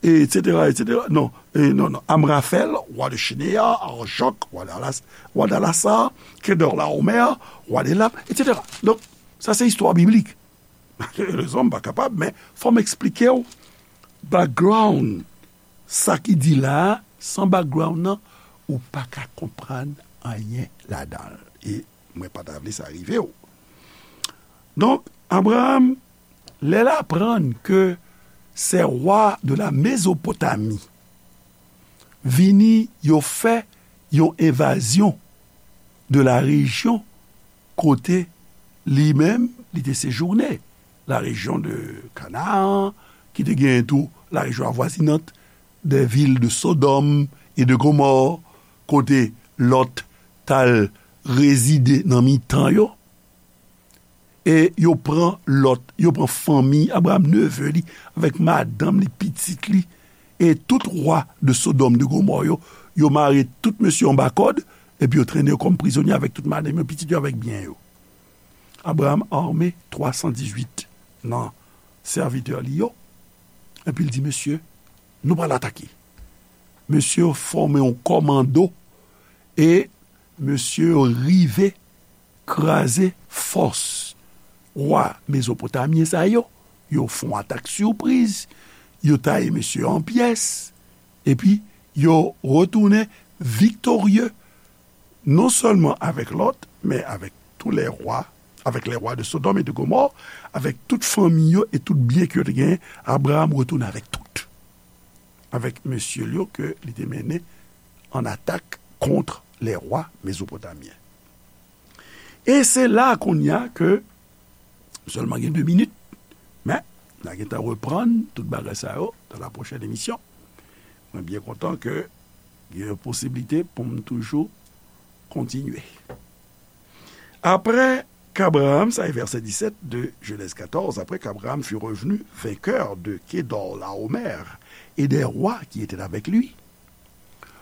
etsetera, etsetera. Non, e, non, non. Amrafèl, wa de Chineya, Arjòk, wa de Alas-, wa de Alasar, Kedorlaomer, wa de Elam, etsetera. Donk, sa se istwa biblik. Malerezman, m pa kapab, men fò m eksplike w background sa ki di la a, san background nan, ou pa ka konprann anyen ladan l. E mwen pa ta vle sa rive w. Donk, Abraham, lè l aprann ke ces rois de la Mésopotamie vini, yo fè yon envazyon de la rejyon kote li menm, li te sejounen, la rejyon de Kanaan, ki te genyen tou la rejyon avwazinant, des villes de Sodome et de Gomorrhe, kote Lòt t al rezide nan mitan yo. E yo pran Lòt, yo pran fanmi Abraham, neve li, avèk madanm li, pitit li, e tout wa de Sodòm, de Gomò yo, yo mare tout mesye anba kòd, epi yo trennen yo kòm prizonye avèk tout madanm yo, pitit yo, avèk byen yo. Abraham ame twa san dizuit nan sèvitè li yo, epi l di, mesye, nou pral atake. Mesye yo fòme yon kòmando, e mesye yo rive kraze fòs wa mezopotamyen sa yo, yo fè yon atak sipriz, yo taye mesye yo an pyès, epi yo retounen viktorye, non sèlman avèk Lòt, men avèk tou lè wa, avèk lè wa de Sodòm e de Gomò, avèk tout fanmi yo e tout byen ke yo te genyen, Abraram retounen avèk tout. Avèk mesye l yo ke li te mennen an atak kont lè wa mezopotamyen. E se la kounye a ke, m sèlman gen de minit, men n a gentan reprann tout bagay sa yo dans la prochaine émission. Mwen byen kontan ke gen yon posiblite pou m toujou kontinye. Après qu'Abraham, ça est verset dix-sept de Genèse quatorze, après qu'Abraham fut revenu vainqueur de Kedorlaomer et des rois qui étaient avec lui,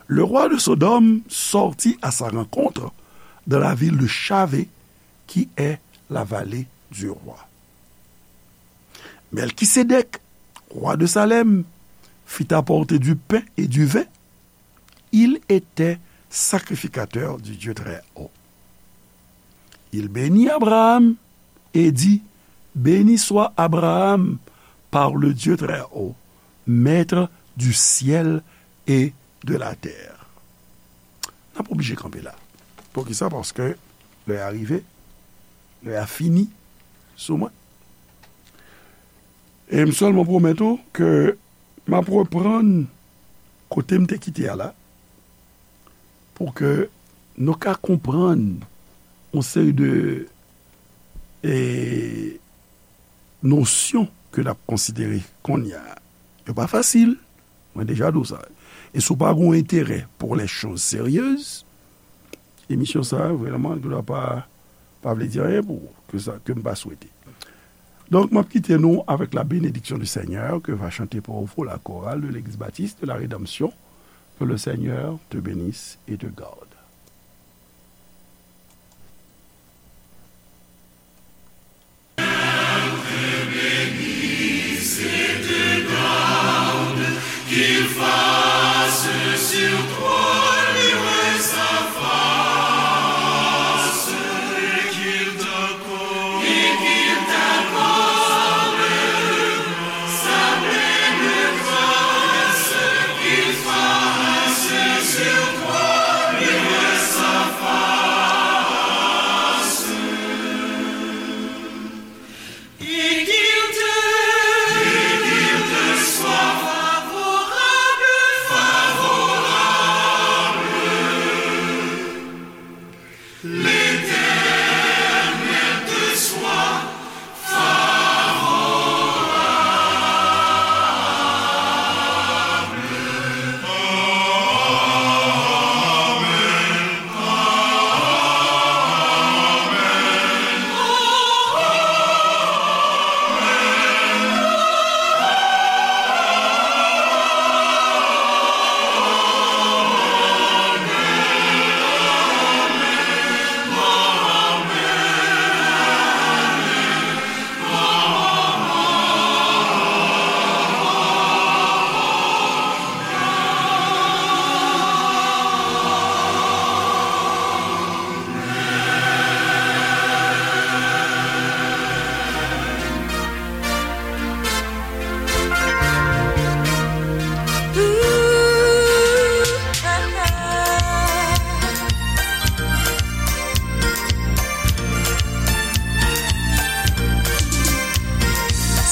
le roi de Sodome sortit à sa rencontre dans la ville de Shavé, qui est la vallée du roi. Melchisédek, roi de Salem, fit apporter du pain et du vin. Il était sacrificateur du Dieu Très-Haut. Il bénit Abraham et dit, Béni soit Abraham par le Dieu Très-Haut, maître du ciel et de la terre. N ap oblije kanpe la. Poukisa? Paske lè a rive, lè a fini sou mwen. E m sèlman pwomèt ou ke m ap reprann kote m te kite a la, pou ke nou ka konprann yon seri de, e, nosyon ke n ap konsidere kounye a. Yo pa fasil, mwen deja di w sa. E si w pa gen yon enterè pour les choses sérieuses, emisyon sa a, vrèman, li pa, pa vle di anyen pou ou, ke sa, ke m pa swete. Donk, m ap kite nou avec la bénédiction du Seigneur que va chanter pour vous la chorale de l'Église Baptiste de la Rédemption. Que le Seigneur te bénisse et te garde. Qu'il fasse sur toi luire sa face, et qu'il t'accorde, et qu'il t'accorde sa pleine grâce, qu'il fasse sur toi luire sa face. Et qu'il te, et qu'il te soit favorable, favorable. L'Éternel te soit favorable.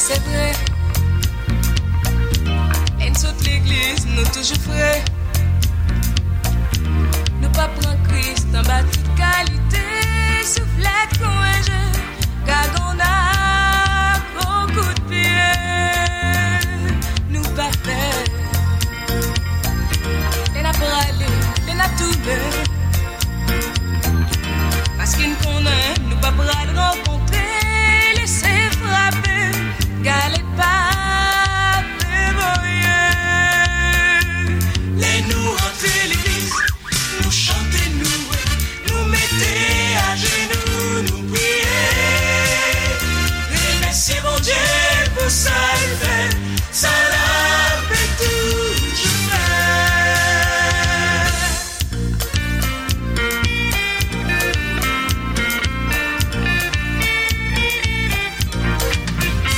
Se vre, lè n sot legliz, nou toujou fre. Nou pa pran Kris anba tout kalite souflèt kon enje. Gad on